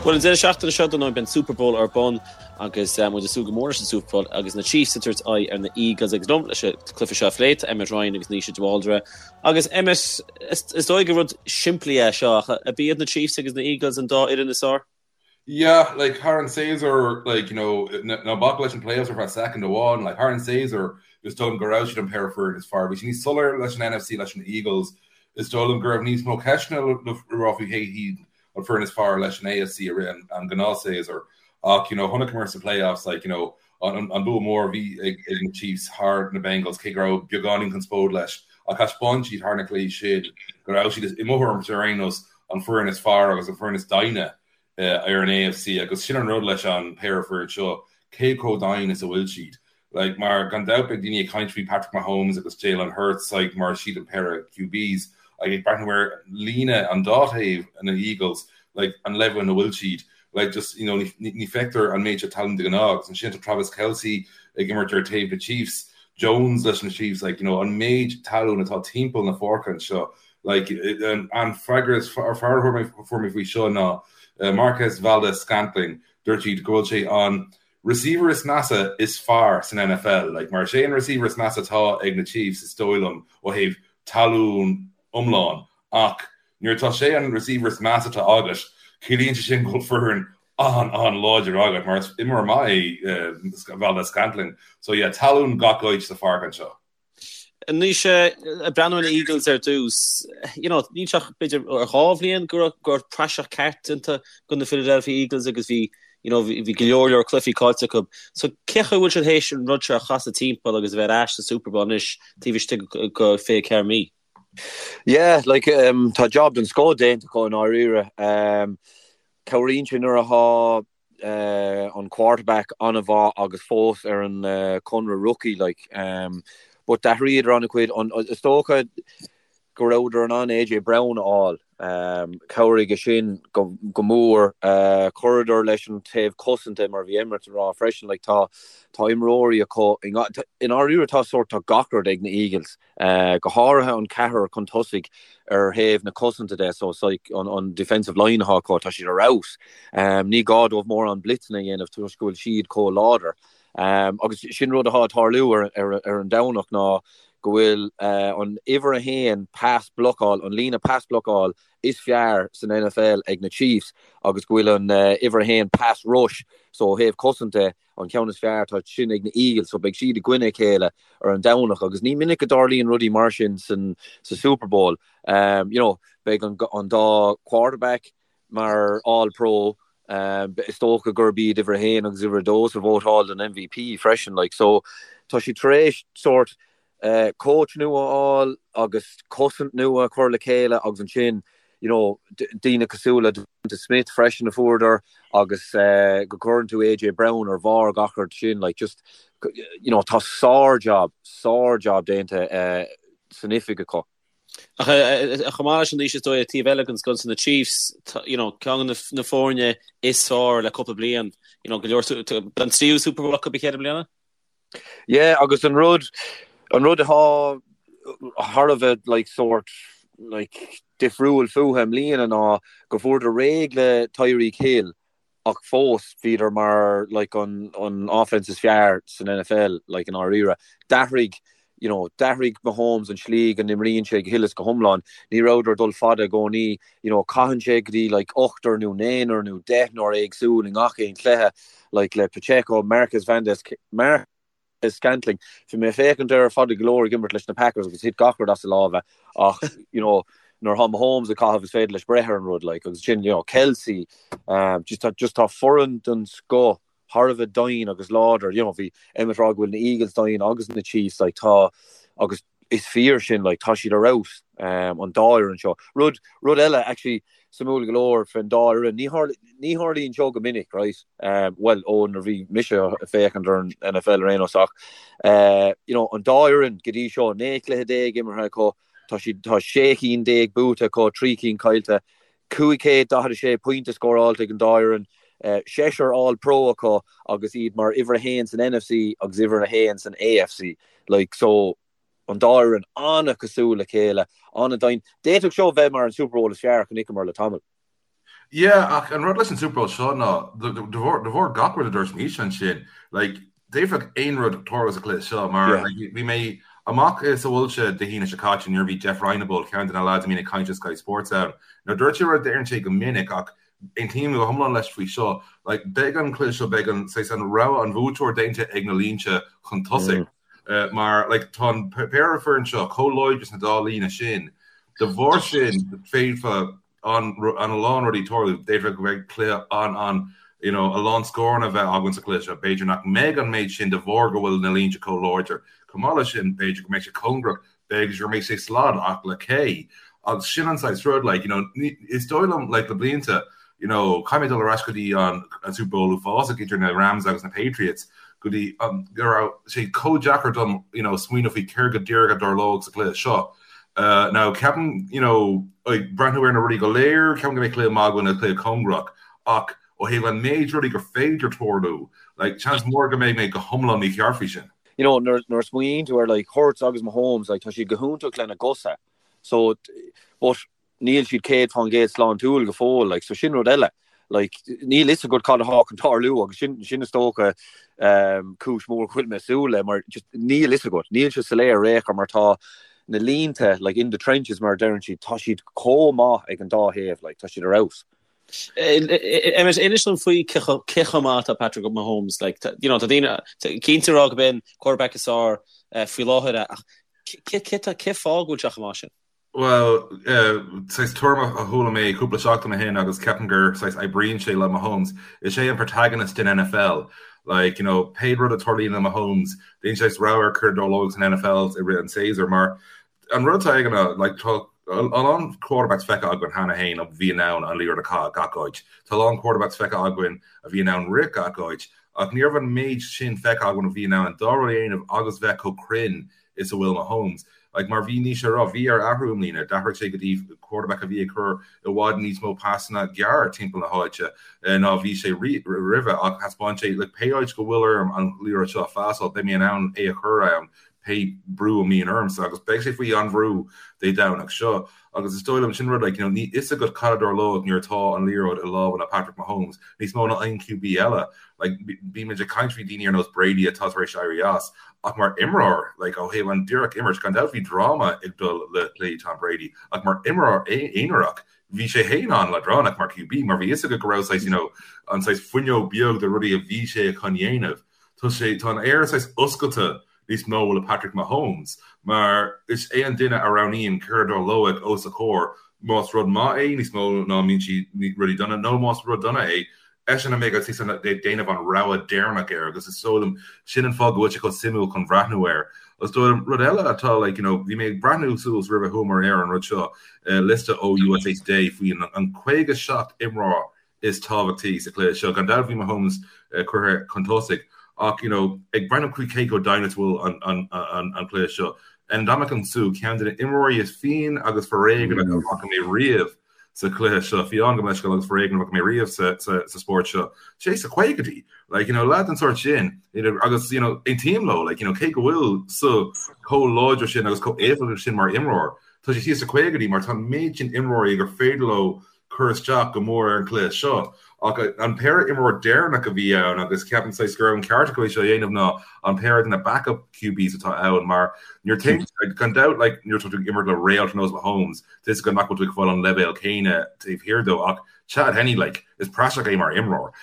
Bhuel, an deireadh seachtaine seo, dar ndóigh, beidh an Super Bowl ar bun agus muid ag súil go mór leis an Super Bowl agus na Chiefs ag tabhairt aghaidh ar na Eagles agus liom leis an cluiche seo a phlé, tá Emmet Ryan agus Naoise de Bhaldraithe. Agus Emmet, is dóigh gur rud simplí é seo ach ab iad na Chiefs agus na Eagles an dá fhoireann is fearr? Yeah, like thar an séasúr, like, you know, ná bac leis an playoffs ar feadh second amháin, like thar an séasúr, is dóigh liom go raibh siad an péire foireann is fearr. Bhí sé níos soiléire leis an NFC leis an Eagles. Is dóigh liom go raibh níos mó ceisteanna le rá faoi cé hiad an foireann is fearr leis an AFC i rith an gnáthshéasúr. Ach, you know, chonaiceamar sa playoffs, like, you know, an an bua mór a bhí ag ag na Chiefs thar na Bengals, cé go raibh beagáinín conspóid leis, ach thaispeáin siad thar na cluichí sin go raibh siad, i mo thuairimse ar aon nós, an foireann is fearr agus an foireann is doimhne ar an AFC agus sin an rud leis an péire foireann seo, cé chomh doimhin is a bhfuil siad. Like, mar gan dabht beidh daoine ag caint faoi Patrick Mahomes agus Jalen Hurts like, mar siad an péire QBs like, ag breathnú ar líne an dá thaobh na Eagles like, an leibhéal ina bhfuil siad like, just, you know, ní, ní feictear an méid seo talún de ghnáth agus ansin tá Travis Kelce ag imirt ar taobh na Chiefs, Jones leis na Chiefs, like, you know, an méid talún atá timpeall na páirce anseo Like, an freagra is fearr a fuair mé faoi seo ná Marquez Valdes-Scantling, dúirt siad go bhfuil sé an receiver is measa is fearr san NFL. Like, mar is é an receiver is measa atá ag na Chiefs is dóigh liom ó thaobh talún iomlán ach nuair atá sé an receiver is measa atá agat, ciallaíonn sé sin go bhfuil foireann an-an-láidir agat mar is imreoir maith é Valdes-Scantling. So yeah, talún gach áit sa pháirc anseo. Anois, ag breathnú ar na Eagles ar dtús, you know, níl sé ach b'fhéidir ar dhá bhliain go raibh go raibh praiseach ceart déanta de na Philadelphia Eagles agus bhí, you know, bhí go leor leor cluichí caillte acu. So cén chaoi a bhfuil siad théis an rud seo a chasadh timpeall agus a bheith ar ais sa Super Bowl anois taobh istigh de 24 mí? Yeah, like, um, tá job den scoth déanta acu i ndáiríre. Um, cabhraíonn sé nuair atá an quarterback an-mhaith agus fós ar an conradh rookie like but d'athraíodar an-chuid is dócha go rabhadar in ann AJ Brown a fháil chabhraigh sin go mór chuireadar leis an taobh cosanta mar bhí Emmet ag rá freisin like tá tá imreoirí acu i ndáiríre tá sórt tá gach rud ag na Eagles go háirithe an ceathrar chun tosaigh ar thaobh na cosanta de, so like an defensive line atá acu, tá siad ar fheabhas. Ní gá dóibh mórán blitzeanna a dhéanamh toisc go bhfuil siad chomh láidir. Agus sin rud atá ag tarlú ar an Domhnach ná go bhfuil an uimhir a haon pass blocáil, an líne pass blocáil is fearr san NFL ag na Chiefs agus go bhfuil an uimhir a haon pass rush, so ó thaobh cosanta, an ceann is fearr, tá sin ag na Eagles, so beidh siad i gcoinne a chéile ar an Domhnach agus ní minic go dtarlaíonn rudaí mar sin san sa Super Bowl. Um, you know, beidh an, an dá quarterback mar All Pro, um, is dócha gurb iad uimhir a haon agus uimhir a dó sa vótáil don MVP freisin, like, so tá siad tar éis sórt coach nua a fháil agus cosaint nua a chur le chéile agus ansin you know daoine cosúil le DeVonta Smith freisin a fuaireadar agus go gcuireann tú AJ Brown ar bharr gach rud sin like just you know tá sár-job, sár-job déanta san oifig acu. Ach chomh maith leis sin Naoise is dóigh taobh eile den scoil na Chiefs, you know, ceann de na foirne is fearr le cúpla bliain, you know, go leor an tríú Super Bowl acu i gceithre bliana? Yeah, agus an rud, an rud atá thar a bheith like sórt like difriúil fúthu i mbliana ná go bhfuaireadar réidh le Tyreek Hill ach fós bhíodar mar like an an offense is fearr san NFL like i ndáiríre. D'athraigh you know, d'athraigh Mahomes an slí go n-imríonn sé go huile is go hiomlán. Ní rabhadar ag dul fada i gcónaí, you know, caitheann sé go dtí like ochtar nó naonúr nó deichniúr éagsúil i ngach aon chluiche, like le Pacheco, Marquez Valdes, Marquez-Scantling. Bhí mé ag féachaint air fada go leor ag imirt leis na Packers agus thit gach rud as a lámha ach, you know, nuair atá Mahomes ag caitheamh is féidir leis breith ar an rud, like, agus sin, you know, Kelce, um, just tá, just tá foireann den scoth thar a bheith doimhin agus láidir, you know, bhí Emmet ag rá go bhfuil na Eagles doimhin agus na Chiefs, like, tá, agus is fíor sin, like, tá siad ar fheabhas, um, an dá fhoireann seo. Rud, rud eile, actually, suimiúil go leor faoin dá fhoireann, ní tharla, ní tharlaíonn seo go minic, right, um, well, ó nuair a bhí mise ag féachaint ar an NFL ar aon nós ach, uh, you know, an dá fhoireann go dtí seo, 19 cluiche imeartha acu, tá siad, tá 16 cinn buaite acu, 3 cinn caillte, 546 pointe scóráilte ag an dá fhoireann, seisear All Pro acu agus iad mar uimhir a haon san NFC agus uimhir a haon san AFC. Like, so, an dá fhoireann an-chosúil le chéile, an-doimhin. D'fhéadfadh seo bheith mar an Super Bowl is fearr a chonaiceamar le tamall. Yeah, ach an rud leis an Super Bowl seo ná, de bharr gach rud a dúirt Naoise ansin, like, d'fhéadfadh aon rud tarlú sa chluiche seo mar like, bhí mé amach sa bhfoilse Dé hAoine seo caite nuair a bhí Jeff Reinebold, ceann de na lads a mbíonn ag caint ar Sky Sports ann. Now dúirt sé rud a deireann sé go minic ach aontaím go hiomlán leis faoi seo, like, beidh an cluiche seo, beidh an, saghas, an rogha, an bhuaiteoir déanta ag na línte chun tosaigh. Mar like, tá an péire foireann seo chomh láidir sna dá líne sin, de bharr sin féadfa an a lán rudaí tarlú. D'fhéadfadh go mbeidh cluiche an-an you know, a lán scóranna a bheith againn sa chluiche seo. B'fhéidir nach mbeidh an méid sin de bharr go bhfuil na línte chomh láidir. Chomh maith leis sin, b'fhéidir go mbeidh sé cóngarach, b'fhéidir go mbeidh sé slad ach le cé? Agus sin an saghas rud, like, you know, is dóigh liom, like, le blianta, you know, caithfidh mé dul ar ais go dtí an, an Super Bowl uafásach idir na Rams agus na Patriots, go dtí um, go raibh sé chomh deacair dom, you know, smaoineamh faoi céard go díreach a dtarlódh sa chluiche seo. Now, ceapaim, you know, ag breathnú ar na rudaí go léir, ceapaim go mbeidh cluiche maith againn nó cluiche cóngarach, ach ó thaobh an méid rudaí gur féidir tarlú, like, seans mór go mbeidh mé go hiomlán mícheart faoi sin. You know, nuair a smaoiníonn tú ar like Hurts agus Mahomes, like, tá siad go hiontach lena gcosa, so, but níl siad 100% sláintiúil go fóill, like, so sin rud eile. Like, níl fhios agat cad atá chun tarlú agus sin, sin is dócha um, cúis mhór go bhfuil mé ag súil le, mar just níl fhios agat, níl sé soiléir ar aon chor mar tá na línte, like, in the trenches mar a deireann siad, tá siad chomh maith ag an dá thaobh, like, tá siad ar fheabhas. Emmet, inis dom faoi cé chomh maith atá Patrick Mahomes, like, you know, tá daoine cinnte ag rá gurb é an quarterback is fearr eh, faoi láthair ach cé fáth go bhfuil sé chomh maith sin? Bhuel, saghas tuairim a chuala mé cúpla seachtain ó shin agus ceapaim gur saghas oibríonn sé le Mahomes, is é an protagonist den NFL. Like, you know, pé rud a tarlaíonn le Mahomes, déanann sé saghas rogha ar céard a tharlóidh san NFL i rith an tséasúir mar an rud atá aige ná, like, tá a lán quarterbacks feicthe againn cheana féin a bhí in ann an liathróid a chaitheamh gach áit. Tá a lán quarterbacks feicthe againn a bhí in ann rith gach áit ach ní raibh an méid sin feicthe againn a bhí in ann an dá rud a dhéanamh agus bheith chomh cruinn is a bhfuil Mahomes. Like, mar bhí Naoise ag rá, bhí air athrú i mbliana, d'athraigh sé go dtí quarterback a bhí ag cur i bhfad níos mó pasanna gearr timpeall na háite ná bhí sé roimhe ach thaispeáin sé, like, pé áit go bhfuil orm an liathróid seo a phasáil, beidh mé in ann é a chur ann pé brú a mbíonn ormsa agus beidh sé faoi an-bhrú Dé Domhnach seo. Agus is dóigh liom sin rud, like, you know, níl fhios agat cad a dtarlóidh nuair atá an liathróid i lámha le Patrick Mahomes, níos mó ná aon QB eile. Like, bímid ag caint faoi daoine ar nós Brady atá tar éis éirí as, ach mar imreoir, like, ó thaobh an díreach imirt, gan dabht bhí dráma ag dul le plé Tom Brady, ach mar imreoir aonarach, bhí sé féin an-leadránach mar QB, mar bhí fhios agat go raibh saghas, you know, an saghas fuinneog beag de rudaí a bhí sé chun dhéanamh. Tá sé, tá an aer saghas oscailte níos mó le Patrick Mahomes mar is é an duine a roghnaíonn céard a tharlóidh os a chomhair, más rud maith é níos mó ná mbíonn sí rudaí dona nó más rud dona é, eisean a mbeidh ag déanamh an rogha deireanach air agus is dóigh liom sin an fáth go bhfuil sé chomh suimiúil chun bhreathnú air. Is dóigh liom rud eile atá like you know bhí mé ag breathnú suas roimh a chuamar ar an rud seo, liosta ó USA Today faoi an 57 imreoir is tábhachtaí sa chluiche seo. Gan dabht bhí Mahomes curtha chun tosaigh ach you know ag breathnú faoi cé chomh doimhin is bhfuil an cluiche seo, Ndamukong Suh, ceann de na imreoirí is fiáine agus foréigneach a bhfaca mé riamh sa chluiche seo, fiáin gabh mo leithscéal agus foréigneach a bhfaca mé riamh sa spórt seo. Sé sna caogaidí, like you know leaid den sórt sin you know agus you know aontaím leo like you know cé go bhfuil Suh chomh láidir sin agus chomh éifeachtach sin mar imreoir, tá sé thíos sna caogaidí mar tá an méid sin imreoirí gur féidir leo cur isteach go mór ar an chluiche seo. Ach an péire imreoir deireanach a bhí ann agus ceapaim saghas go raibh an ceart acu é seo a dhéanamh ná an péire de na backup QBs atá ann mar nuair tá gan dabht like nuair atá tú ag imirt le réalt ar nós Mahomes tá fhios agat nach bhfuil tú ag fáil an leibhéal céanna taobh thiar dó ach Chad Henne like is praiseach é mar imreoir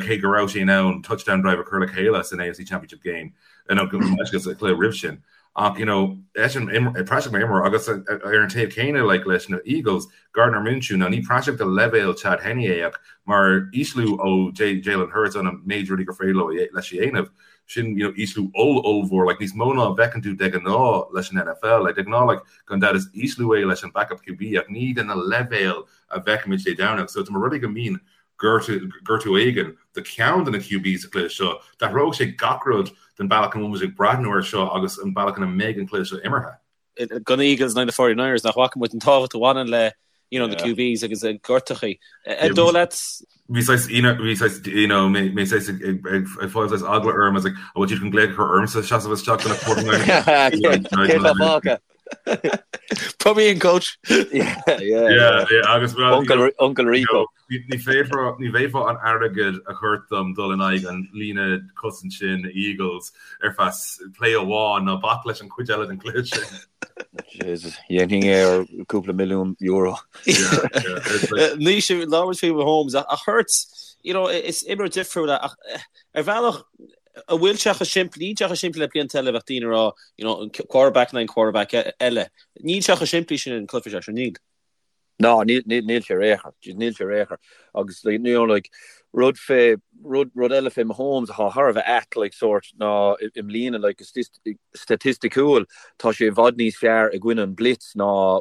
cé go raibh sé in ann touchdown drive a chur le chéile san AFC Championship game nó sa chluiche roimh sin. Ach you know eisean praiseach mar imreoir agus ar an taobh céanna like leis na Eagles, Gardner Minshew, now ní praiseach de leibhéal Chad Henne é ach mar ísliú ó Jalen Hurts an méid rudaí gur féidir leo leis a dhéanamh, sin you know ísliú oll-ollmhór like níos mó ná a bhfeiceann tú de ghnáth leis an NFL. Like de ghnáth like gan dabht is ísliú é leis an backup QB ach ní de na leibhéal a bhfeicimid Dé Domhnaigh. So tá mar rudaí go mbíonn gortú éigin do cheann de na QBs sa chluiche seo, d'athródh sé gach rud den bealach ina bhfuil muid ag breathnú air seo agus an bealach ina mbeidh an cluiche seo imeartha. Do na Eagles in aghaidh na 49ers, nach bhfaca muid an tábhacht a bhaineann le you know, na QBs agus a gortachaí. Ar dóigh leat? Bhí saghas, bhí saghas, you know, mé mé saghas ag ag ag ag fáil saghas eagla orm, I was like, an bhfuil siad chun glaoch a chur ormsa seasamh isteach do na 49ers? Cé tá fágtha? Put me in coach. Yeah, yeah, yeah. Yeah, agus well, Uncle, Uncle Rico. Ní féadfá ní bhféadfá an airgead a chur dom dul in aghaidh an líne cosaint sin na Eagles ar feadh play amháin ná bac leis an chuid eile den chluiche sin. Jesus, dhéanfainn é ar cúpla milliún euro. Naoise, labhair faoi Mahomes ach Hurts, you know, is imreoir difriúil ach ar bhealach an bhfuil sé chomh simplí, níl sé chomh simplí le blianta eile bheadh daoine ag rá, you know, an quarterback in aghaidh an quarterback eile. Níl sé chomh simplí sin an cluiche seo, níl. No, níl, níl, níl sé ar aon chor. Níl sé ar aon chor. Agus, like, you know, like, rud fé, rud, rud eile fé Mahomes atá thar a bheith ait, like, sórt, ná i, i mbliana, like, staitisticiúil, tá sé i bhfad níos fearr i gcoinne an blitz ná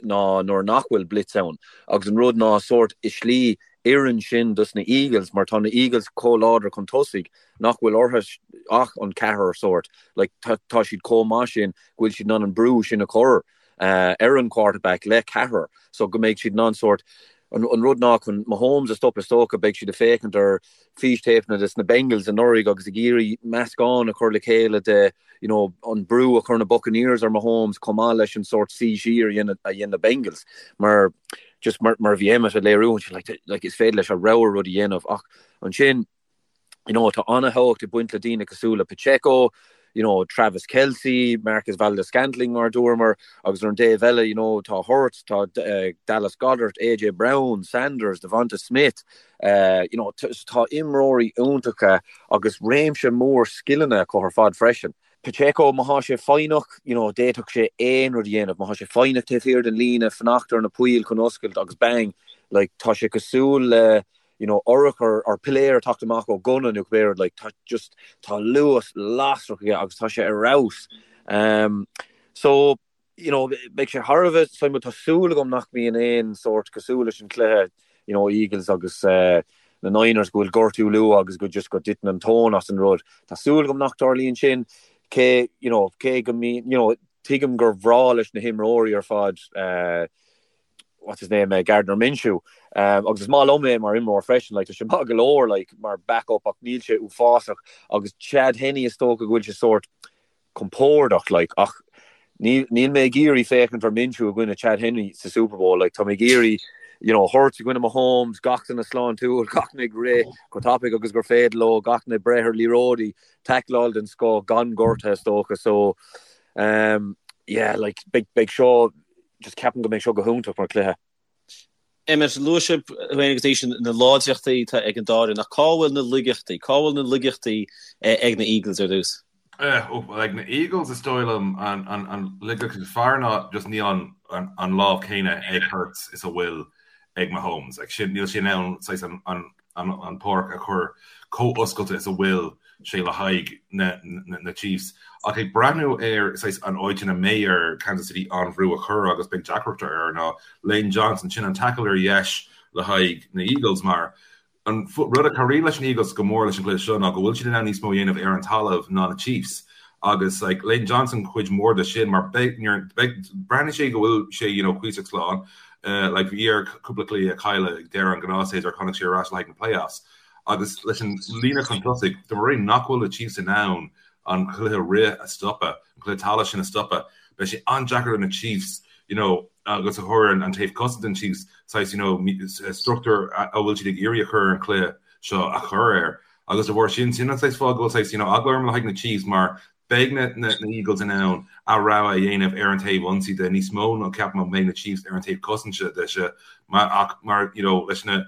ná nuair nach bhfuil blitz ann. Agus an rud ná sórt i slí oireann sin dos na Eagles mar tá na Eagles chomh láidir chun tosaigh nach bhfuil orthu ach an ceathrar sórt like tá tá siad chomh maith sin go bhfuil siad in ann an brú sin a chur ar an quarterback le ceathrar so go mbeidh siad in ann sórt an an rud ná chun Mahomes a stop is dócha beidh siad ag féachaint ar fístéipeanna des na Bengals anuraidh agus ag iarraidh meascán a chur le chéile de you know, an brú a chuir na Buccaneers ar Mahomes chomh maith leis an sórt suí siar a dhein a dhein na Bengals mar just mar mar a bhí Emmet ag léiriú ansin like like is féidir leis a rogha rud a dhéanamh ach ansin you know, tá an-thábhacht ag baint le daoine cosúil le Pacheco, you know, Travis Kelce, Marquez Valdes-Scantling mar a dúramar agus ar an dtaobh eile, you know, tá Hurts, tá uh, Dallas Goedert, AJ Brown, Sanders, DeVonta Smith, uh, you know, tá imreoirí iontacha agus réimse mór scileanna acu ar fad freisin. Pacheco, má thá sé foighneach, you know, d'fhéadfadh sé aon rud a dhéanamh. Má thá sé foighneach taobh thiar den líne, fanacht ar na poill chun oscailt agus bang, like, tá sé cosúil le, you know, urchar or piléar ag teacht amach ó gunna nó cibé rud, like, tá just, tá luas lasrach aige agus tá sé ar fheabhas. Um, so, you know, beidh sé thar a bheith suimiúil, tá súil agam nach mbíonn aon sórt cosúil leis an cluiche, you know, Eagles agus uh, na Niners go bhfuil gortú luath agus go just go dtiteann an tóin as an rud. Tá súil agam nach dtarlaíonn sin, cé, you know, cé go mbíonn, you know, tuigim gur bhreá leis na himreoirí ar fad, uh, what's his name, uh, Gardner Minshew. Um, agus is maith liom é mar imreoir freisin, like, tá sé maith go leor like, mar backup ach níl sé uafásach agus Chad Henne is dócha go bhfuil sé sórt compordach like, ach níl, níl mé ag iarraidh féachaint ar Minshew i gcoinne Chad Henne sa Super Bowl like, tá mé ag iarraidh you know, Hurts i gcoinne Mahomes, gach duine sláintiúil, gach duine ag rith chomh tapaidh agus gur féidir leo, gach duine ag breith ar liathróidí, tackleáil den scoth gan gortuithe is dócha. So, um, yeah, like, beidh, beidh seo just ceapaim go mbeidh seo go hiontach mar chluiche. Emmet, luaigh sibh féin agus Naoise na láidreachtaí atá ag an dá fhoireann, ach cá bhfuil na laigeachtaí? Cá bhfuil na laigeachtaí ag na Eagles ar dtús? Ag na Eagles is dóigh liom an laigeacht is fearr ná just níl an lámh céanna ag Hurts is a bhfuil ag Mahomes. Like sin, níl sé in ann saghas an an pháirc a chur chomh oscailte is a bhfuil sé le haghaidh na Chiefs. Ach ag breathnú ar saghas an áit ina mbeidh ar Kansas City an bhrú a chur agus beidh deacracht air ná Lane Johnson, sin an tackle ar dheis le haghaidh na Eagles mar an rud a chabhraíonn leis na Eagles go mór leis an gcluiche seo ná go bhfuil siad in ann níos mó a dhéanamh ar an talamh ná na Chiefs agus like Lane Johnson cuid mhór de sin mar beidh breathnaíonn sé go bhfuil sé you know cuíosach slán Like bhí air cúpla cluiche a chailleadh ag deireadh an ghnáthshéasúir tháinig sé ar ais le haghaidh na playoffs. Agus leis an líne chun tosaigh, de bharr nach bhfuil na Chiefs in ann an cluiche rith a stopadh, an cluiche talaimh sin a stopadh, beidh sé an-deacair do na Chiefs, you know, agus a chur an taobh cosanta den Chiefs, saghas, you know, struchtúr a bhfuil siad ag iarraidh a chur ar an chluiche seo a chur air. Agus de bharr sin, sin an saghas fáth go bhfuil saghas, you know, eagla orm le haghaidh na Chiefs mar Beidh na Eagles in ann a rogha a dhéanamh ar an taobh ionsaí de níos mó ná ceapaim a mbeidh na Chiefs ar an taobh cosanta de seo ach mar you know leis na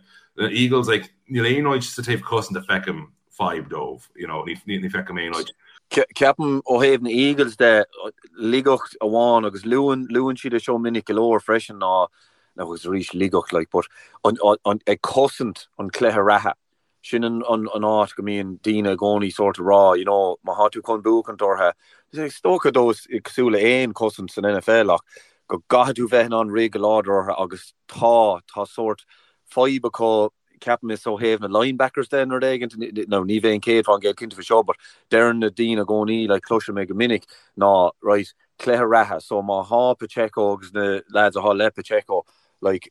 Eagles like níl aon áit sa taobh cosanta a feicim fadhb dóibh you know ní ní feicim aon áit. Ceapaim ó thaobh na Eagles de laigeacht amháin agus luann luann siad é seo minic go leor freisin ná agus arís laigeacht like but an an ag cosaint an cluiche reatha Sin an áit go mbíonn daoine i gcónaí sórt ag rá, you know, má thá tú chun buachaint orthu, is dócha dó is cosúil le aon chosaint san NFL ach go gcaithfidh tú bheith in ann rith go láidir orthu agus tá, tá sórt fadhb acu, ceapaim is ó thaobh na linebackers de nó rud éigint, nó ní bheinn 100% cinnte faoi seo but deireann na daoine i gcónaí, like cloisim é go minic, ná right, cluiche reatha, so má thá Pacheco agus na lads athá le Pacheco, like,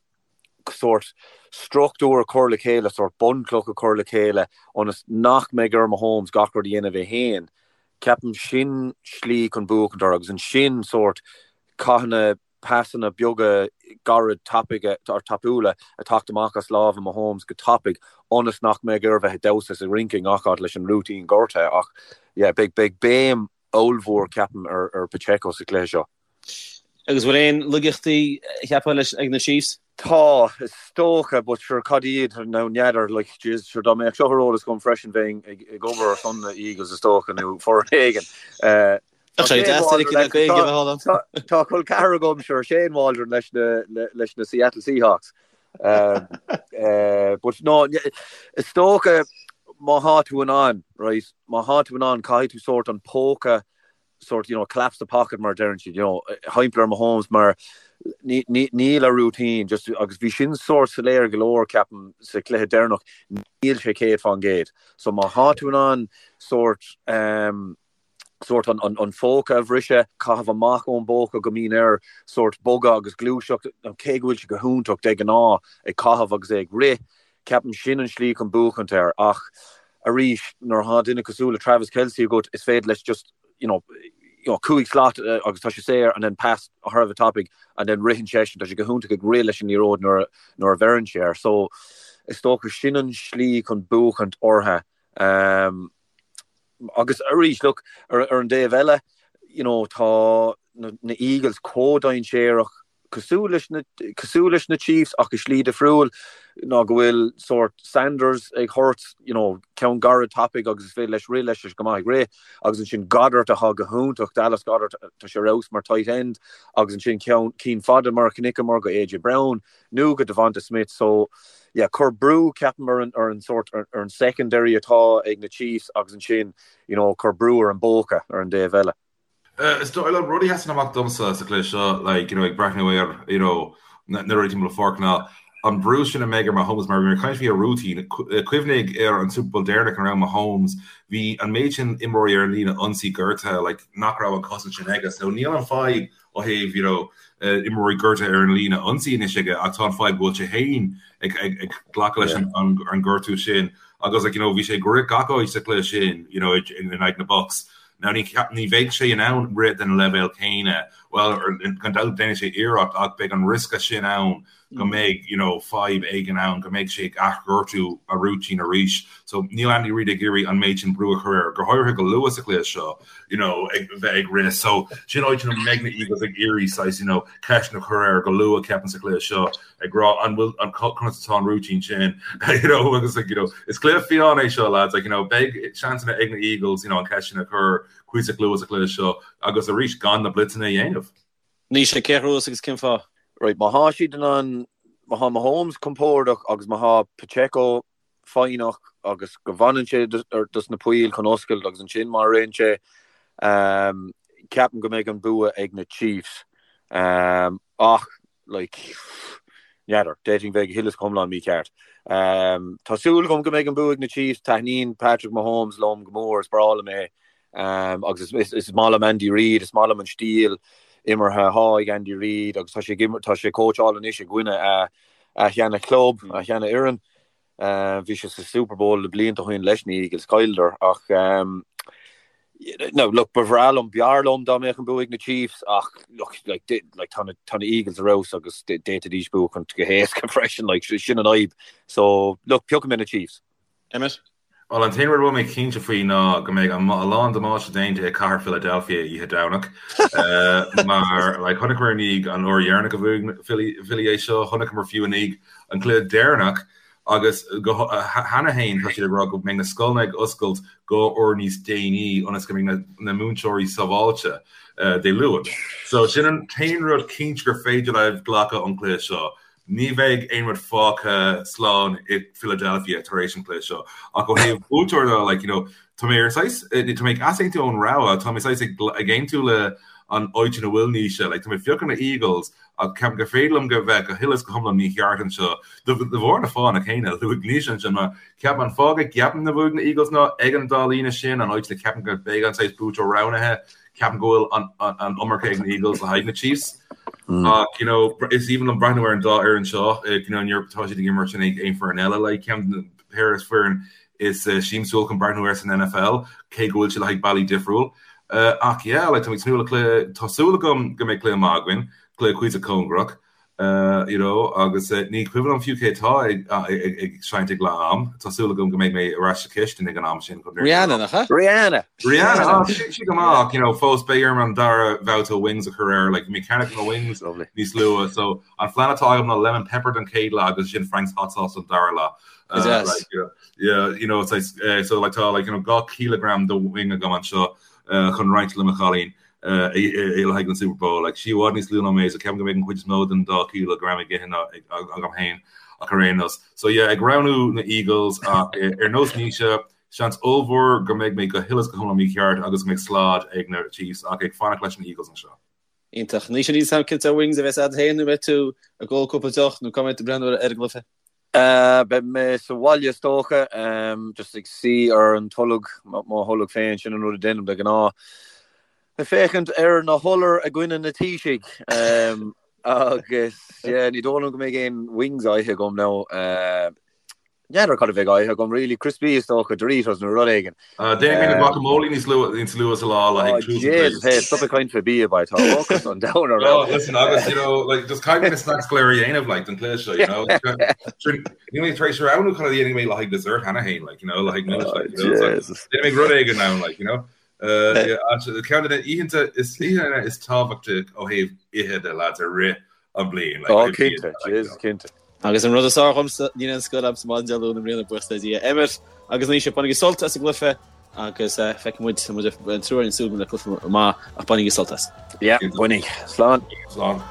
sórt struchtúr a chur le chéile, sórt bunchloch a chur le chéile ionas nach mbeidh ar Mahomes gach rud a dhéanamh é féin. Ceapaim sin slí chun buachaint orthu agus ansin sórt Caithfidh na pasanna beaga gairid tapaidh or tapúla a teacht amach as lámha Mahomes go tapaidh ionas nach mbeidh air bheith ag damhsa is ag rince i ngach áit leis an routine gortaithe ach yeah beidh beidh béim ollmhór ceapaim ar ar Pacheco sa chluiche seo. Agus bhfuil aon laigeachtaí cheapfá leis ag na Chiefs? Tá, is dócha, but sure cad iad now n'fheadar, like jeez, sure dá mbeadh seo ar eolas agam freisin bheinn ag ag obair ar son na Eagles is dócha nó foireann éigin. Eh, Tá sé deas duine éigin Gaeilge a bheith ann. Tá col ceathar agam sure Shane Waldron leis na leis na Seattle Seahawks. Um, eh, but no, is dócha má thá tú in ann, right, má thá tú in ann caithfidh tú sórt an póca sort, you know, collapse the pocket mar a deireann siad, you know, thimpeall ar Mahomes mar níl a routine just agus bhí sin sórt soiléir go leor ceapaim sa chluiche deireanach, níl sé 100%. So má thá tú in ann sórt um, sórt an, an, an phóca a bhriseadh, caitheamh amach ón bpóca go mbíonn air sórt bogadh agus gluaiseacht, cé go bhfuil sé go hiontach de ghnáth ag caitheamh agus é ag rith, Ceapaim sin an slí chun buachaint air ach arís nuair atá duine cosúil le Travis Kelce agat is féidir leis just you know you know 5 slat agus tá sé saor and then pass thar a bheith tapaidh and then ritheann seisean tá sé go hiontach ag rith leis an liathróid nuair nuair a bheireann sé air so is dócha sin an slí chun buachaint orthu um, agus arís look ar, ar an dtaobh eile you know tá na, na Eagles chomh dainséarach cosúil leis na cosúil leis na Chiefs ach i slí difriúil ná go bhfuil sórt Sanders ag thabhairt you know ceann gairid tapaidh agus is féidir leis rith leis go maith ag rith agus ansin Goedert atá go hiontach Dallas Goedert tá sé ar fheabhas mar tight end agus ansin ceann cinn fada mar a chonaiceamar go AJ Brown nó go DeVonta Smith so yeah cuir brú ceapaim ar an ar an sórt ar an secondary atá ag na Chiefs agus ansin you know cuir brú ar an bpóca ar an dtaobh eile. Is dóigh liom rud a sheasann amach domsa sa chluiche seo, like, you know, ag breathnú ar, you know, na rudaí timpeall an pháirc ná an brú sin a mbeidh ar Mahomes mar bhí mé ag caint faoi a routine. Cuimhnigh ar an Super Bowl deireanach ina raibh Mahomes, bhí an méid sin imreoirí ar an líne ionsaí gortaithe, like, nach raibh an cosaint sin aige. So níl an fadhb ó thaobh, you know, imreoirí gortaithe ar an líne ionsaí anois aige ach tá an fadhb go bhfuil sé féin ag, ag, ag glacadh leis an, an, an gortú sin agus, like, you know, bhí sé ag rith gach áit sa chluiche sin, you know, in aghaidh na Bucs. Now ní ní bheidh sé in ann rith den leibhéal céanna, bhuel, gan dabht déanfaidh sé iarracht ach beidh an riosca sin ann go mbeidh you know fadhb éigin ann, go mbeidh sé ag athghortú a routine arís. So níl Andy Reid ag iarraidh an méid sin brú a chur air, go háirithe go luath sa chluiche seo, you know, ag bheith ag rith. So sin áit ina mbeidh na Eagles ag iarraidh saghas you know ceist a chur air go luath ceapaim sa chluiche seo. ag rá an bhfuil an conas atá an routine sin you know agus like you know is cluiche fiáin é seo lads like you know beidh seansanna ag na Eagles you know an ceist sin a chur cuíosach luath sa chluiche seo agus arís gan na blitzeanna a dhéanamh. Naoise, cé a ghnóthós agus cén fáth? Right, má thá siad in ann, má thá Mahomes compordach agus má thá Pacheco foighneach agus go bhfanann sé dos na poill chun oscailt agus ansin má ritheann sé, ceapaim go mbeidh an bua ag na Chiefs. Ach like, n'fheadar, d'fhéadfainn bheith go huile is go hiomlán mícheart. Tá súil agam go mbeidh an bua ag na Chiefs, taitníonn Patrick Mahomes liom go mór, is breá liom é. Agus is maith liom Andy Reid, is maith liom an stíl imeartha atá ag Andy Reid agus tá sé tá sé ag cóitseáil anois i gcoinne a a sheana chlub, a sheana fhoireann. Bhí sé sa Super Bowl le blianta ó shin leis na Eagles, chailleadar ach no, look, ba bhreá liom, b'fhearr liom dá mbeadh an bua ag na Chiefs ach look, like, like, tá na, tá na Eagles ar fheabhas agus d'fhéadfaidís buachaint go héasca freisin, like, sin an fhadhb. So, look, piocfaidh mé na Chiefs. Emmet? Bhuel, an t-aon rud a bhfuil mé cinnte faoi ná go mbeidh a lán damáiste déanta i cathair Philadelphia oíche Domhnach. Mar, like, chonaiceamar i ndiaidh an uair dheireanach a bhuaigh Philly, Philly é seo, chonaiceamar fiú i ndiaidh an cluiche deireanach agus go, cheana féin tá siad ag rá go mbeidh na scoileanna ag oscailt dhá uair níos déanaí ionas go mbeidh na, na múinteoirí sábháilte Dé Luain. So sin an t-aon rud cinnte gur féidir libh glacadh ón cluiche seo. Ní bheidh aon rud fágtha slán i Philadelphia tar éis an chluiche seo. Ach ó thaobh buaiteoir de, like, you know, tá mé ar saghas, tá mé ag easaontú ón rogha, tá mé saghas ag ag aontú le an áit ina bhfuil Naoise, like, tá mé ag piocadh na Eagles ach ceapaim gur féidir liom go bheith go huile is go hiomlán mícheart anseo de bharr na fáthanna céanna a luaigh Naoise ansin mar ceapaim an fáth go gceapaim go mbuafaidh na Eagles ná ag an dá líne sin, an áit le ceapaim go mbeidh an saghas buaiteoir roghnaithe. Ceapaim go bhfuil an iomarca ag na Eagles le haghaidh na Chiefs. Ach, you know, is aoibhinn liom breathnú ar an dá fhoireann seo, you know, nuair atá siad ag imirt in aghaidh aon foireann eile, like, ceann de na péire foireann is siamsúil chun breathnú air san NFL, cé go bhfuil siad le haghaidh bealaí difriúil. Ach yeah, like, tá mé ag tnúth le cluiche, tá súil agam go mbeidh cluiche maith againn, cluiche cuíosach cóngarach, you know, agus ní cuimhin liom fiú cé atá ag ag seinnt ag leath am, tá súil agam go mbeidh mé ar ais sa chistin ag an am sin chun Rihanna, nach ea? Rihanna! Rihanna, ah, sí sí go maith ach, you know, fós beidh orm an dara babhta wings a chur air, like, bhí mé ag ceannach na wings Lovely. níos luaithe, so an phlean atá agam ná lemon pepper don chéad leath agus ansin Frank's hot sauce don dara leath. Go deas. Like, you know, Yeah, you know, it's like, eh, so like tá like, you know, 2 chileagram de wing agam anseo eh, chun roinnt le mo chailín eh, i le haghaidh an Super Bowl. Like, sí i bhfad níos lú ná mé, so ceapaim go mbeidh an chuid is mó den 2 chileagram ag ithe ná ag, ag, agam féin ach ar aon nós. So yeah, ag roghnú na Eagles ach eh, ar nós Naoise, seans ollmhór go mbeidh mé go huile is go hiomlán mícheart agus go mbeidh slad ag na Chiefs ach ag fanacht leis na Eagles anseo. Iontach. Naoise, níl a fhios agam cén sórt wings a bheas agat féin nó beidh tú ag ól cúpla deoch nó cá mbeidh tú ag breathnú ar an gcluiche? Beidh mé sa bhaile is dócha, just ag suí ar an tolg, mo tholg féin, sin an rud a déanaim de ghnáth. Ag féachaint ar na hIolair i gcoinne na Taoisigh. Agus yeah, ní dóigh liom go mbeidh aon wings á ithe agam now. N'fheadar cad a bheidh á ithe agam really, crispy is dócha, Doritos nó rud éigin. Déanfaidh mé na guacamole níos luaithe níos luaithe sa lá le haghaidh tús an Jesus, hey, stop ag caint fé bia, boy, tá ocras an domhain orm. Oh, listen, agus, you know, like, just caithfidh mé na snacks go léir a dhéanamh, like, don chluiche seo, you know. Níl mé tar éis roghnú cad a dhéanfaidh mé le haghaidh dessert cheana féin, like, you know, le haghaidh millis, like, you know, it's like, déanfaidh mé rud éigin ann, like, you know. Uh, yeah, actually, ceann de na oícheanta is oícheanta is tábhachtaí ó thaobh ithe de lads i rith an bliain. Like, Oh, cinnte, Jesus, cinnte. Agus an rud is fearr dhomsa, níl aon scoil a'msa maidin Dé Luain i mbliana, buíochas le Dia. Emmet agus Naoise, bainigí sult as an gcluiche agus feicfidh muid, muid an triúr againn ag súil le cluiche maith ach bainigí sult as. Yeah, bainigí. Slán. Slán.